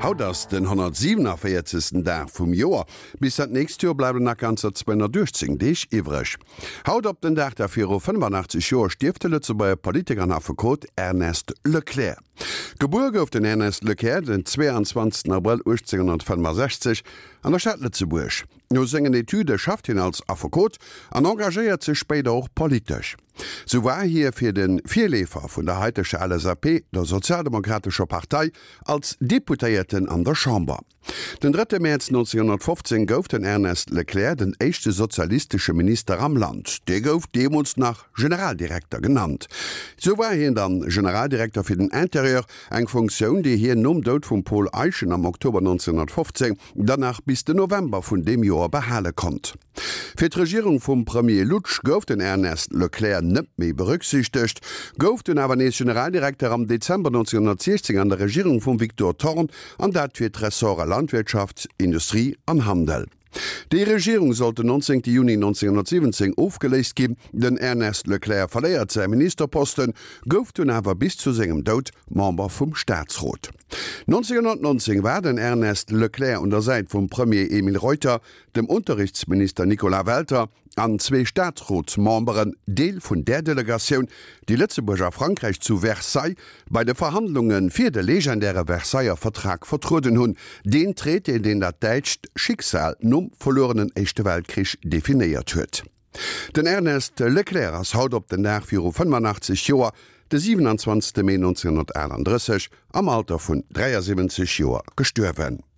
Haut ass den 147. Dag vum Joer. Bis dat nächst Joer bleiwen nach ganzer 218 Deeg iwwreg. Haut op den Dag da viru 85 Joer stierft de Lëtzebuerger Politiker an Affekot Ernest Leclerc. Gebuer gouf den Ernest Leclerc den 22 Abrëll 1865 an der Stad Lëtzebuerg. No sengen Etüde schafft hien als Affekot an engagéiert sech spéider och politesch. Sou war hie fir de Virleefer vun der haiteger LSAP, der Sozialdemokratescher Partei, als Deputéierten an der Chamber. Den drëtte Mäerz 1915 gouf den Ernest Leclerc den éischte sozialistesche Minister am Land. Dee gouf deemools nach Generaldirekter genannt. Sou war hien dann Generaldirekter fir den Interieur, eng Funktioun, déi hien nom Doud vum Paul Eyschen am Oktober 1915 dann nach bis den November vun deem Joer behale konnt. Fir d'Regierung vum Premier Lutsch gouf den Ernest Leclerc net méi berücksichtegt, gouf dunn awer nees Generaldirekter am Dezember 1916 an der Regierung vum Victor Thorn, an dat fir d'Ressorte Landwirtschaft, Industrie an Handel. Déi Regierung sollt den 19 Juni 1917 ofgeléist ginn. Den Ernest Leclerc verléiert säi Ministerposten, gouf dunn awer bis zu sengem Doud Member vum Staatsrot. 1919 war den Ernest Leclerc un der Säit vum Premier Emile Reuter dem Unterrichtsminister Nicolas Welter an zwee Staatsrotsmemberen Deel vun där Delegatioun, déi Lëtzebuerg a Frankräich zu Versailles bei de Verhandlunge fir de legendäre Versailler Vertrag vertrueden hunn, deen Traité, deen dat däitscht Schicksal nom verluerenen Éischte Weltkrich definéiert huet. Den Ernest Leclerc ass haut op den Dag viru 85 Joer, de 27 Mee 1938, am Alter vun 73 Joer gestuerwen.